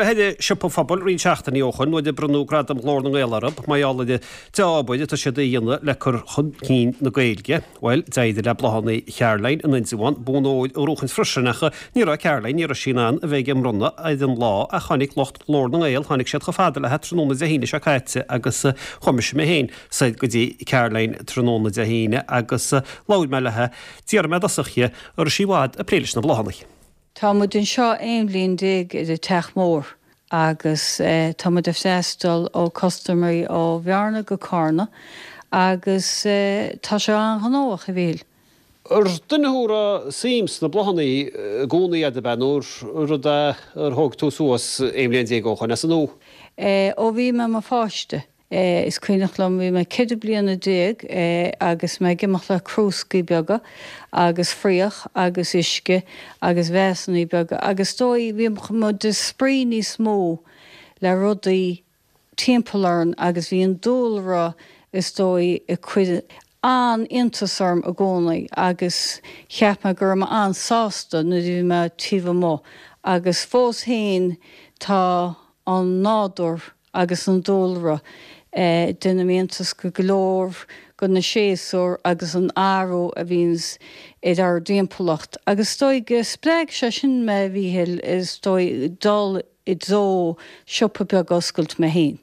mé ar an Siopa Phobail roinnt seachtainí ó shoin nuair a bronnadh Gradam Ghlór na nGael orthu, mar gheall ar an dea-obair atá siad a dhéanamh le cur chun cinn na Gaeilge. Bhuel, d'éirigh le Bláthanna Charoline in Indreabhán bonn óir a ghnóchaint freisin ach ní raibh Caroline, ní raibh sí in ann a bheith ag an mbronnadh ar an lá ach tháinig lucht Ghlór na nGael, tháinig siad chomh fada léi tráthnóna Dé hAoine seo caite agus chuaigh mise mé féin soir go dtí Caroline tráthnóna Dé hAoine agus labhair mé léi. D'fhiafraigh mé i dtosach dhi, an raibh sí i bhfad ag plé leis na bláthanna. Tá muid anseo 11 bhliain ar an Teach Mór agus tá muid ag freastal ó custaiméirí ó Bhearna go Carna agus tá sé an-ghnóthach, a Mhíchíl. Ar duine thú a raibh suim sna bláthanna i gcónaí a'd ab ea nó rud é ar thóg tú suas 11 bhliain ó shoin as an nua? Ó bhí mé i mo pháiste. Is cuimhneach liom, bhí mé 14 bliana agus mé ag imeacht le crúscaí beaga agus fraoch agus uisce agus véasannaí beaga agus is dóigh bhí muid ag spraoi níos mó le rudaí timpeall orainn agus bhí an dúlra is dóigh ag cur an-iontas orm i gcónaí agus cheap mé go raibh mé an-sásta nuair a bhí mé taobh amuigh agus fós féin tá an nádúr agus an dúlra. Déanaim iontas go go leor go na séasúir agus an athrú a bhíonns ar ár dtimpeallacht. Agus is dóigh go spreag sé sin mé, a Mhíchíl, is dóigh, dul i dtreo siopa beag a oscailt mé féin.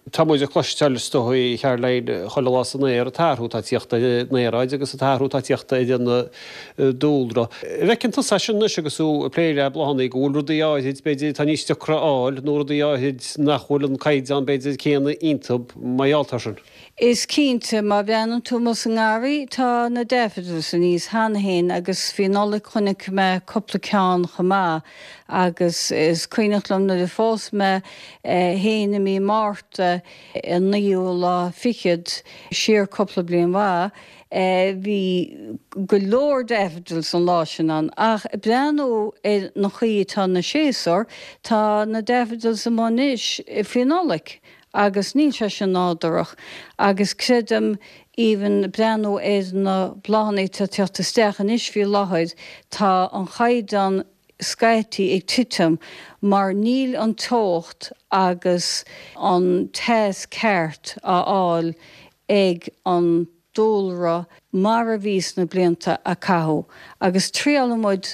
Tá muid ag cloisteáil, is dóigh, a Charoline, chuile lá san aer, an t-athrú atá ag tíocht ar an aeráid agus an t-athrú atá ag tíocht ar an dúlra. An bhfeiceann tusa é sin anois agus tú ag plé le bláthanna, go bhfuil rudaí áithrid, b'fhéidir, atá níos deacra a fháil nó rudaí áithrid nach bhfuil an caighdeán, b'fhéidir, céanna iontu mar gheall air sin? Is cinnte, má bhreathnaíonn tú amuigh sa ngarraí, tá na daffodils aníos cheana féin agus faoi Nollaig chonaic mé cúpla ceann chomh maith agus is cuimhneach liom nuair a phós mé féin i mí Márta, an naoú lá fichead, siar cúpla bliain mhaith, Bhí go leor daffodils an lá sin ann ach ag breathnú ar an chaoi atá na séasúir, tá na daffodils amuigh anois faoi Nollaig agus níl sé sin nádúrach agus creidim even breathnú ar na bláthanna atá ag teacht isteach anois faoi láthair, tá an chaighdeán scaití ag titim mar níl an teocht agus an teas ceart á fháil ag an dúlra mar a bhí sna blianta a caitheadh agus triálann muid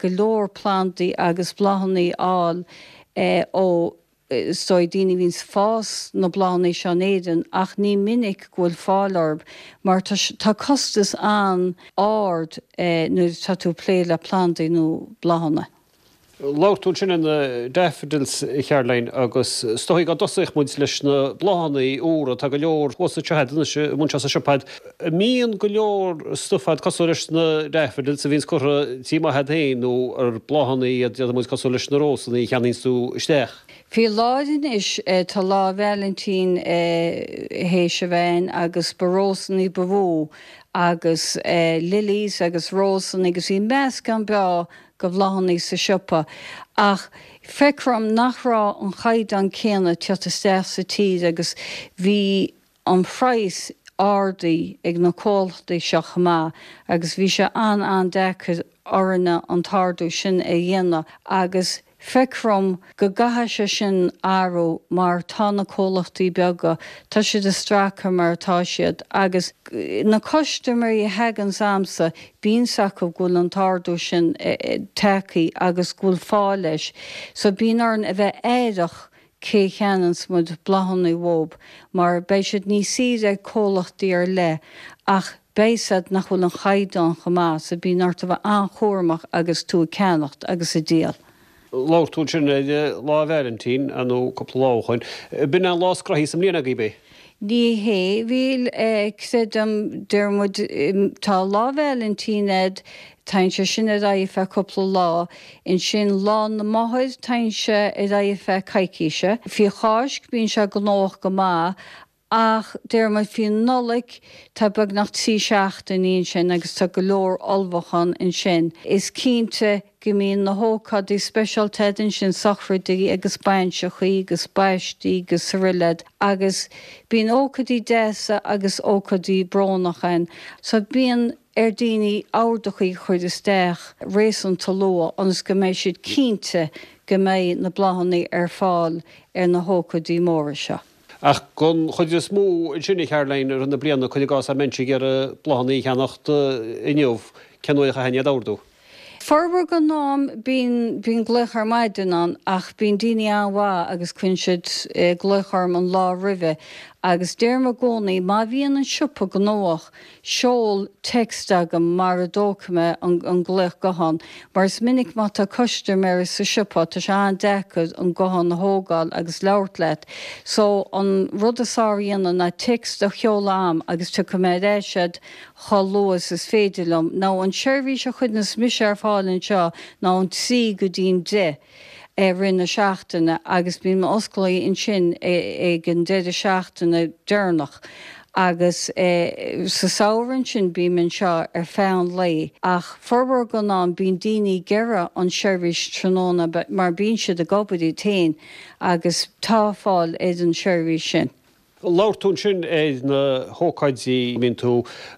go leor plandaí agus bláthanna a fháil ó is dóigh daoine a bhíonns ag fás na bláthanna seo in Éirinn ach ní minic go bhfuil fáil orthu mar tá tá costas an-ard nuair atá tú ag plé le plandaí nó bláthanna. Labhair tú ansin ar na daffodils, a Charoline, agus is dóigh go dtosóidh muid leis na bláthanna úra, tá go leor thuas anseo a'd anois, amuigh anseo sa siopa a'd. An mbíonn go leor stuif a'd cosúil leis na daffodils a bhíonns curtha tí maith a'd féin nó ar bláthanna iad, déarfaidh muid, cosúil leis na rósanna a cheannaíonns tú isteach? Faoi láthair anois tá Lá Vailintín théis a bheith ann agus ba rósanna ba mhó agus lilies agus rósanna agus bhí meascán breá de bhláthanna sa siopa ach feictear dom nach raibh an chaighdeán céanna ag teacht isteach sa tír agus bhí an praghas ardaithe ag na comhlachtaí seo chomh maith agus bhí sé an-an-deacair orainne an t-ardú sin a dhéanamh agus feictear dom go gcaithfidh sé sin athrú mar tá na comhlachtaí beaga, tá siad ag stracadh mar atá siad agus na custaiméirí a thaganns a'msa, bíonn 's acu go bhfuil an t-ardú sin tagtha agus go bhfuil fáth leis so bíonn orainn a bheith aireach cé a cheannaíonns muid bláthanna uathub mar beidh siad níos saoire ag comhlachtaí ar leith ach beidh 's a'd nach bhfuil an chaighdeán chomh maith so bíonn ort a bheith an-chúramach agus tú ag ceannacht agus ag díol. Labhair tú ansin ar Lá Vailintín, nó cúpla lá ó shoin. B'in é an lá is gnoithí sa mbliain agaibh é? Ní hé, bhuel, creidim, deir muid, tá Lá Vailintín a'd, téann sé sin ar aghaidh feadh cúpla lá, ansin Lá na Máthar, téann sé ar aghaidh feadh coicíse. Faoi Cháisc bíonn sé gnóthach go maith Ach deir muid faoi Nollaig, tá beagnach 3 seachtainí ansin agus tá go leor ullmhúchán ansin. Is cinnte go mbíonn na hócáidí speisialta a'd ansin, sochraidí agus bainseachaí agus baistí agus araile agus bíonn ócáidí deasa agus ócáidí brónach ann. So bíonn. ar daoine ordachaí a chur isteach réasúnta luath ionas go mbeidh siad cinnte go mbeidh na bláthanna ar fáil ar na hócáidí móra seo. Ach don chuid is mó ansin, a Charoline, i rith na bliana, cuir i gcás dá mbeinnse ag iarraidh bláthanna a cheannacht inniu, cén uair a chaithfinn iad a ordú? Formhór den am bíonn, bíonn glaoch ar maidin ann ach bíonn daoine an-mhaith agus cuireann siad glaoch orm an lá roimhe agus deirim i gcónaí má bhíonn an siopa gnóthach seol text agam mara dtógfaidh mé an an glaoch guthán mar is minic má tá custaiméir sa siopa tá sé an-deacair an guthán a thógáil agus labhairt leat so an rud is fearr a dhéanamh ná text a sheoladh a'm agus tiocfaidh mé ar ais a'd chomh luath is is féidir liom. Now an seirbhís a chuireanns mise ar fáil anseo ná ón 3 go dtí'n 10 i rith na seachtaine agus bím osclaithe ansin ag an deireadh seachtaine deireanach agus sa samhradh ansin bím anseo ar feadh an lae ach formhór den am bíonn daoine ag iarraidh an seirbhís tráthnóna mar bíonn siad ag obair iad féin agus tá fáil ar an seirbhís sin. Labhair tú ansin ar na hócáidí a mbíonn tú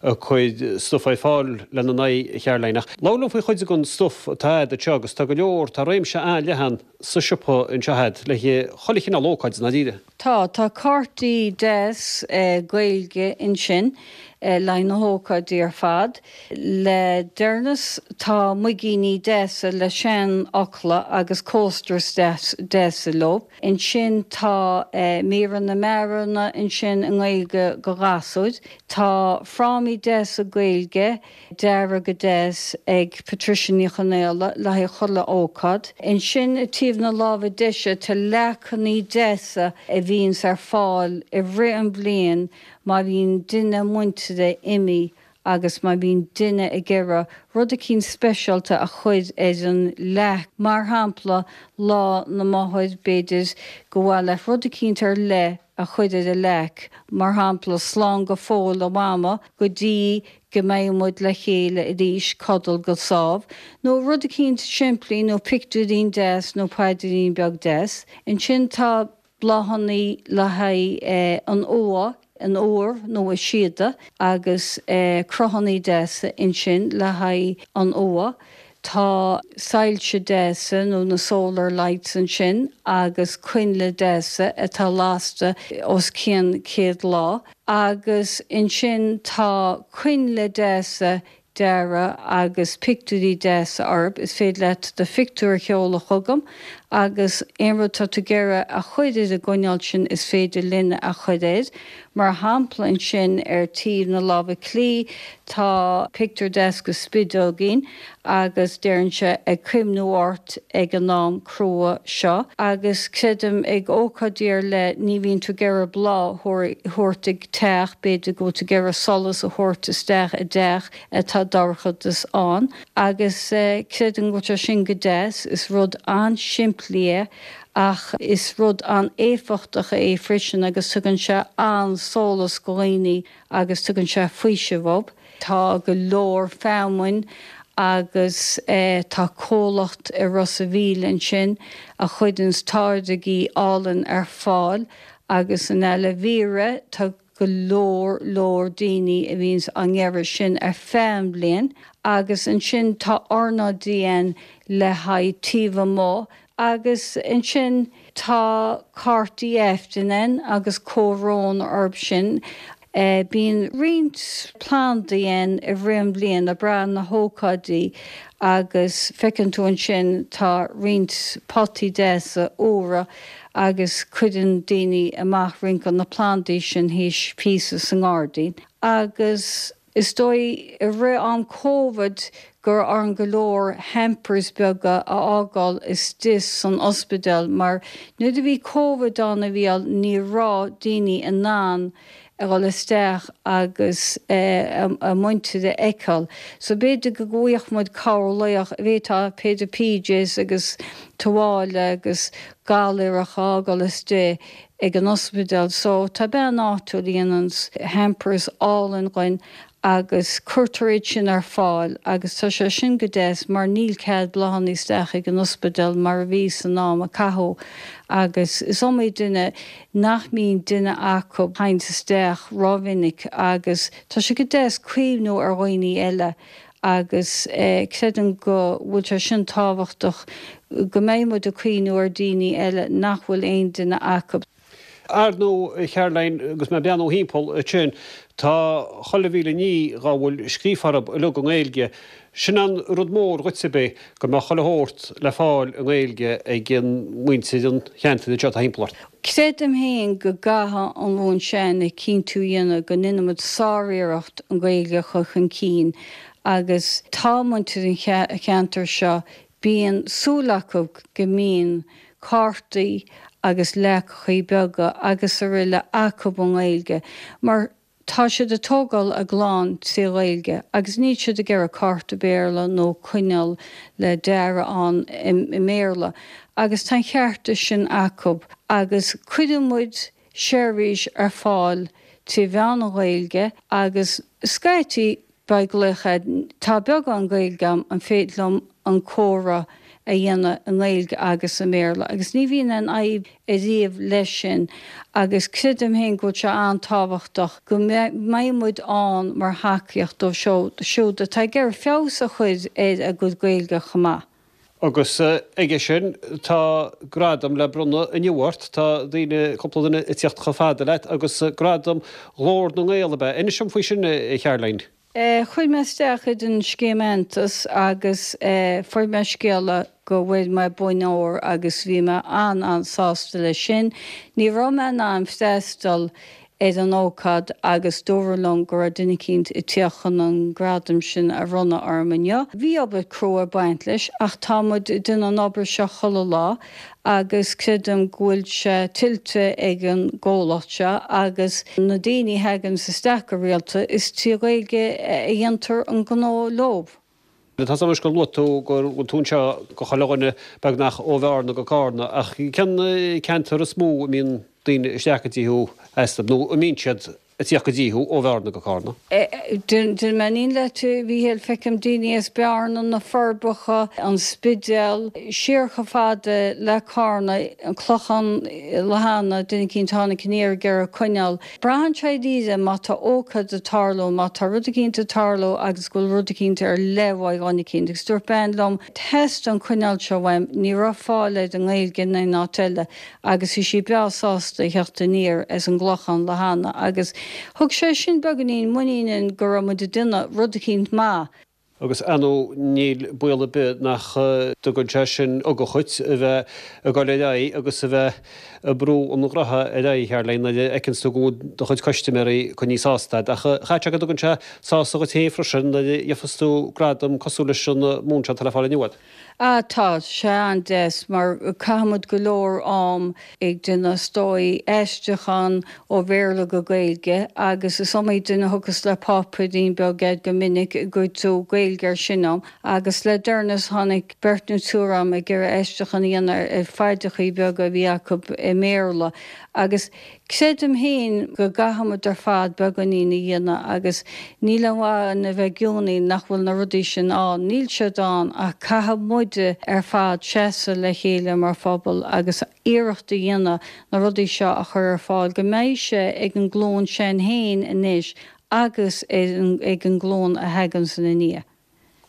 ag cur stuif ar fáil lena n-aghaidh, a Charoline, ach labhair liom faoi chuid den stuif atá a'd anseo agus tá go leor, tá réimse an-leathan sa siopa anseo a'd le haghaidh chuile chineál ócáid i ndáiríre. Tá, tá cártaí deas Gaeilge ansin le haghaidh na hócáidí ar fad. Le deireanas tá muigíní deasa le seanfhocla agus coasters deasa leo. Ansin tá míreanna mearanna ansin i nGaeilge do ghasúir. Tá frámaí deasa Gaeilge deartha go deas ag Patricia Ní Chonaola le haghaidh chuile ócáid. Ansin i taobh na láimhe deise tá leacannaí deasa a bhíonns ar fáil i rith an bhliain má bhíonn duine muintire imithe agus má bhíonn duine ag iarraidh rud eicínt speisialta a chur ar an leac, mar shampla Lá na Máthar, b'fhéidir gur mhaith leat rud eicínt ar leith a chur ar an leac, mar shampla Slán go fóill a Mhama go dtí go mbeidh muid le chéile arís, codail go sámh, nó rud eicínt simplí nó pictiúirín deas nó paidrín beag deas. Ansin tá. bláthannaí le haghaidh an uaigh, an iúr nó an síoda agus cruthannaí deasa ansin le haghaidh an uaigh. Tá soilse deasa nó na solar lights ansin agus coinnle deasa atá lasta os cionn 100 lá agus ansin tá coinnle deasa deartha agus pictiúirí deasa orthu. Is féidir leat do phictiúr a sheoladh chugam agus aon rud atá tú ag iarraidh a chur ar an gcoinneal sin is féidir linn a chur air. Mar shampla ansin ar taobh na láimhe clí tá pictiúr deas de spideoigín agus deireann sé 'ag cuimhniú ort ag an am crua seo' agus creidim ag ócáidí ar leith ní bhíonn tú ag iarraidh bláth a thabhairt ag teach, b'fhéidir go bhfuil tú ag iarraidh solas a thabhairt isteach i dteach atá dorchadas ann agus creidim go bhfuil sé sin go deas, is rud an-simplí é ach is rud an-éifeachtach é freisin agus tugann sé an-sólas go dhaoine agus tugann sé faoiseamh dóibh. Tá go leor feamainn agus tá comhlacht i Ros a' Mhíl ansin a chuireanns táirgí álainn ar fáil agus an aloe vera, tá go leor leor daoine a bhíonns á n-iarraidh sin ar feadh an bhliain agus ansin tá ornáidí ann le haghaidh taobh amuigh agus ansin tá cártaí Aifrinn ann agus comhbhrón orthu sin. Bíonn roinnt plandaí ann i rith an bhliain ag brath na hócáidí agus feiceann tú ansin tá roinnt potaí deasa úra agus cuireann daoine amach roinnt de na plandaí sin thíos píosa sa ngairdín agus is dóigh i rith am Covid go raibh orainn go leor hampers beaga a fhágáil istigh san ospidéal mar nuair a bhí Covid ann a Mhícheáil ní raibh daoine in ann a dhul isteach agus a muintir a fheiceáil. So b'fhéidir go bhfaigheadh muid cabhair b'fhéidir b'fhéidir PJs agus tuáille agus galaoireach a fhágáil istigh ag an ospidéal. So tá bean áitiúil a dhéananns hampers álainn dhuinn. Agus cuirtear iad sin ar fáil agus tá sé sin go deas mar níl cead bláthanna isteach ag an ospidéal mar a bhí san am a caitheadh agus is iomaí duine nach mbíonn duine acu a thaganns isteach rómhinic agus tá sé go deas cuimhniú ar dhaoine eile agus creidim go bhfuil sé sin tábhachtach go mbeidh muid ag cuimhniú ar daoine eile nach bhfuil aon duine acu. Ar ndóigh, a Charoline, agus mé ag breathnú thimpeall ansin, tá chuile mhíle ní dhá bhfuil scríofa orthu uilig i nGaeilge. Sin an rud mór dhuit, ab é, go mbeadh chuile shórt le fáil i nGaeilge ag muintir an cheantair anseo atá thimpeall ort. Creidim féin go gcaithfidh an ghlúin s'againne cinntiú a dhéanamh go ndéanaimid sár-iarracht an Ghaeilge a chur chun cinn agus tá muintir an cheantair seo Bíonn súil acu go mbíonn cártaí agus leacachaí beaga agus aroile acu i nGaeilge mar tá siad ag tógáil a gclann trí Ghaeilge agus níl siad ag iarraidh cárta Béarla nó coinneal le dearadh ann i mBéarla agus tá an cheart sin acu agus cuireann muid seirbhís ar fáil trí mheán an Ghaeilge agus scaití Beidh glaoch agat, tá beagán Gaeilge agam, an féidir liom an comhrá a dhéanamh i nGaeilge agus i mBéarla? Agus ní bhíonn aon fhadhb ariamh leis sin agus creidim féin go bhfuil sé an-tábhachtach go mbeidh muid ann mar thacaíocht dóibh siúd atá ag iarraidh feabhas a chur ar a gcuid Gaeilge chomh maith. Agus aige sin, tá gradam le bronnadh inniu ort. Tá daoine, cúpla duine ag tíocht chomh fada leat agus gradam Ghlór na nGael, ab ea? Inis dom faoi sin, a Charoline. Chuir mé isteach ar an scéim aitheantais agus fuair mé scéala go bhfuair mé bonn óir agus bhí mé an-an-sásta leis sin. Ní raibh mé in ann freastal ar an ócáid agus dúradh liom go raibh duine eicínt ag tíocht chun an gradam sin a bhronnadh orm inniu. Bhí obair crua ag baint leis ach tá muid ag déanamh an obair seo chuile lá agus creidim go bhfuil sé tuillte ag an gcomhlacht seo agus na daoine a thaganns isteach go rialta is trí Ghaeilge a dhéantar an gnó leob. Tá 's agam anois gur luaigh tú go bhfuil tú anseo go chuile dhuine beagnach ó Bhearna go Cárna ach cén ceantar is mó a mbíonn daoine isteach go dtí thú astu nó a mbíonn siad ag tíocht go dtí thú ó Bhearna go Cárna? Déanfaidh mé an fhírinne leat, a Mhíchíl, feicim daoine as Bearna, na Forbacha, an Spidéal, siar chomh fada le Cárna, an Clochán Lathána, duine eicínt a tháinig aniar ag iarraidh coinneal. Braitheann sé dáiríre má tá ócáid ag tarlú, má tá rud eicínt ag tarlú agus go bhfuil rud eicínt ar leith uaidh dhuine eicínt. Agus dúirt bean liom, theastaigh an coinneal seo uaim, ní raibh fáil air i nGaeilge in aon áit eile agus bhí sí breá sásta a theacht aniar as an gClochán Lathána agus thug sé sin beagáinín muiníne go raibh muid ag déanamh rud eicínt maith. Agus ar ndóigh níl baol ar bith nach dtugann sé sin ugach dhuit a bheith ag dul ar aghaidh agus a bheith ag brú an ghnótha ar aghaidh, a Charoline, nuair a fheiceanns tú go bhfuil do chuid custaiméirí coinnithe sásta agat. Ach chaithfeadh sé go dtugann sé sásamh dhuit féin freisin nuair a gheofas tú gradam cosúil leis an mbonn seo atá le fáil inniu agat. Ah tá sé an-deas mar caithimid go leor am ag déanamh is dóigh aistriúchán ó Bhéarla go Gaeilge agus is iomaí duine a thiocfas le páipéirín beag agat go minic an gcuirfidh tú Gaeilge ar sin dom agus le deireanas tháinig beirt nó triúr agam ag iarraidh aistriúchán a dhéanamh ar phaidreachaí beaga a bhí acu i mBéarla agus Creidim féin go gcaithfimid ar fad beagáinín a dhéanamh agus níl aon mhaith againn a bheith ag geonaíl nach bhfuil na rudaí sin ann. Níl siad ann ach caithfidh muide ar fad seasamh le chéile mar phobal agus iarracht a dhéanamh na rudaí seo a chur ar fáil go mbeidh sé ag an nglúin s'againn féin anois agus ag an nglúin a thaganns ina ndiaidh.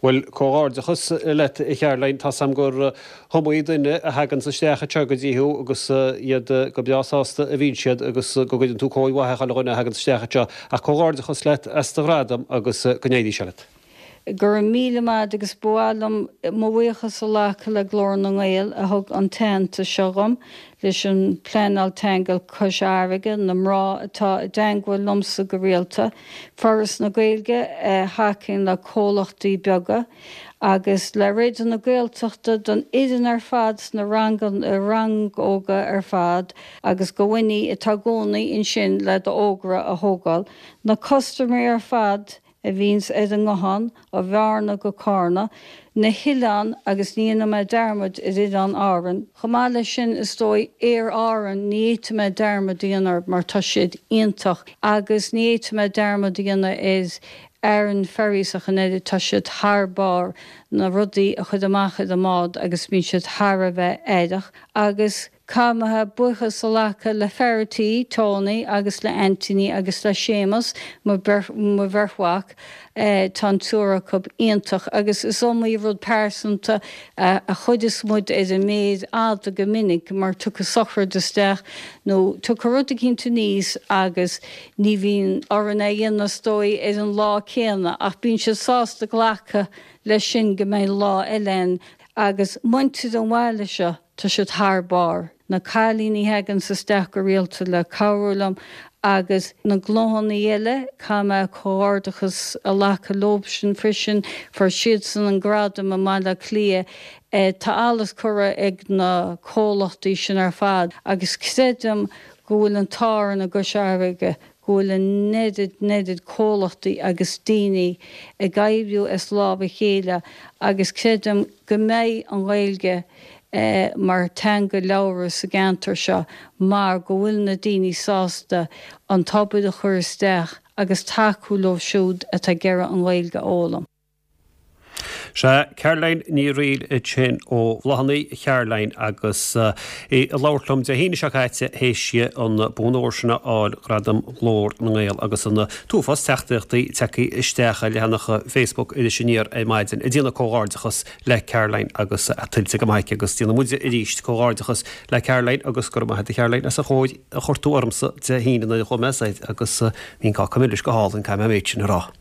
Bhuel, comhghairdeachas leat, a Charoline. Tá's a'm gur iomaí duine a thaganns isteach anseo go dtí thú agus iad go breá sásta a bhíonn siad agus go gcuireann tú cóir mhaith ar chuile dhuine a thaganns isteach anseo. Ach comhghairdeachas leat as do ghradam agus go n-éirí sé leat. Go raibh míle maith agat agus ba mhaith liom mo bhuíochas a ghlacadh le Glór na nGael a thug an t-aitheantas seo dhom, leis an Pleanáil Teanga Cois Fharraige, na mná atá i dteangmháil liomsa go rialta, Foras na Gaeilge a thacaíonn le comhlachtaí beaga, agus le Raidió na Gaeltachta don fhoireann ar fad sna rannóga ar fad agus do Winnie atá i gcónaí ansin le d'fhógra a thógáil, na custaiméirí ar fad a bhíonns ar an nguthán ó Bhearna go Cárna, na hoileáin agus ní dhéanfaidh mé dearmad ar Oileáin Árann. Chomh maith leis sin, is dóigh, Aer Árann, ní fhéadfaidh mé dearmad a dhéanamh orthu mar tá siad iontach agus ní fhéadfaidh mé dearmad a dhéanamh ar. Aran Ferries ach an oiread, tá siad thar barr, na rudaí a chur amach ar an mbád agus bíonn siad thar a bheith aireach agus caithfidh mé buíochas a ghlacadh le fear a' tí, Tony, agus le Anthony agus le Séamus, mo bheirt mhac, tá an triúr acu iontach agus is iomaí rud pearsanta a chuireas muid ar an méar fhada go minic mar tiocfaidh sochraid isteach nó tiocfaidh rud eicínt aníos agus Ní bhíonn orainn é a dhéanamh is dóigh ar an lá céanna ach bíonn siad sásta glacadh leis sin go mbeidh lá eile ann agus muintir an bhaile seo tá siad thar barr. Na cailíní a thaganns isteach go rialta le cabhrú liom agus na gnóthannaí eile, caithfidh mé comhghairdeachas a ghlacadh leobsan freisin, fuair siadsan an gradam i mBaile Átha Cliath. Tá allas curtha ag na comhlachtaí sin ar fad agus creidim go bhfuil an t-ádh orainn i gCois Fharraige go bhfuil an oiread, an oiread comhlachtaí agus daoine ag oibriú as lámh a chéile agus creidim go mbeidh an Ghaeilge mar teanga labhartha sa gceantar seo mar go bhfuil na daoine sásta an t-obair a chur isteach agus tacú leo siúd atá ag iarraidh an Ghaeilge a fhoghlaim. Sea, Caroline Ní Fhrighil ansin ó Bhláthanna Charoline agus í ag labhairt liom Dé hAoine seo caite théis di an bonn óir sin a fháil, Gradam Ghlór na nGael agus an t-uafás teachtaireachtaí tagtha isteach ar leathanach Facebook Iris Aniar ar maidin ag déanamh comhghairdeachas le Caroline agus tuillte go maith aici agus déanann muide arís comhghairdeachas le Caroline agus go raibh maith agat a Charoline as an chóir a chuir tú ormsa Dé hAoine nuair a chuaigh mé soir agus bhí an cáca milis go hálainn, caithfidh mé an méid sin a rá.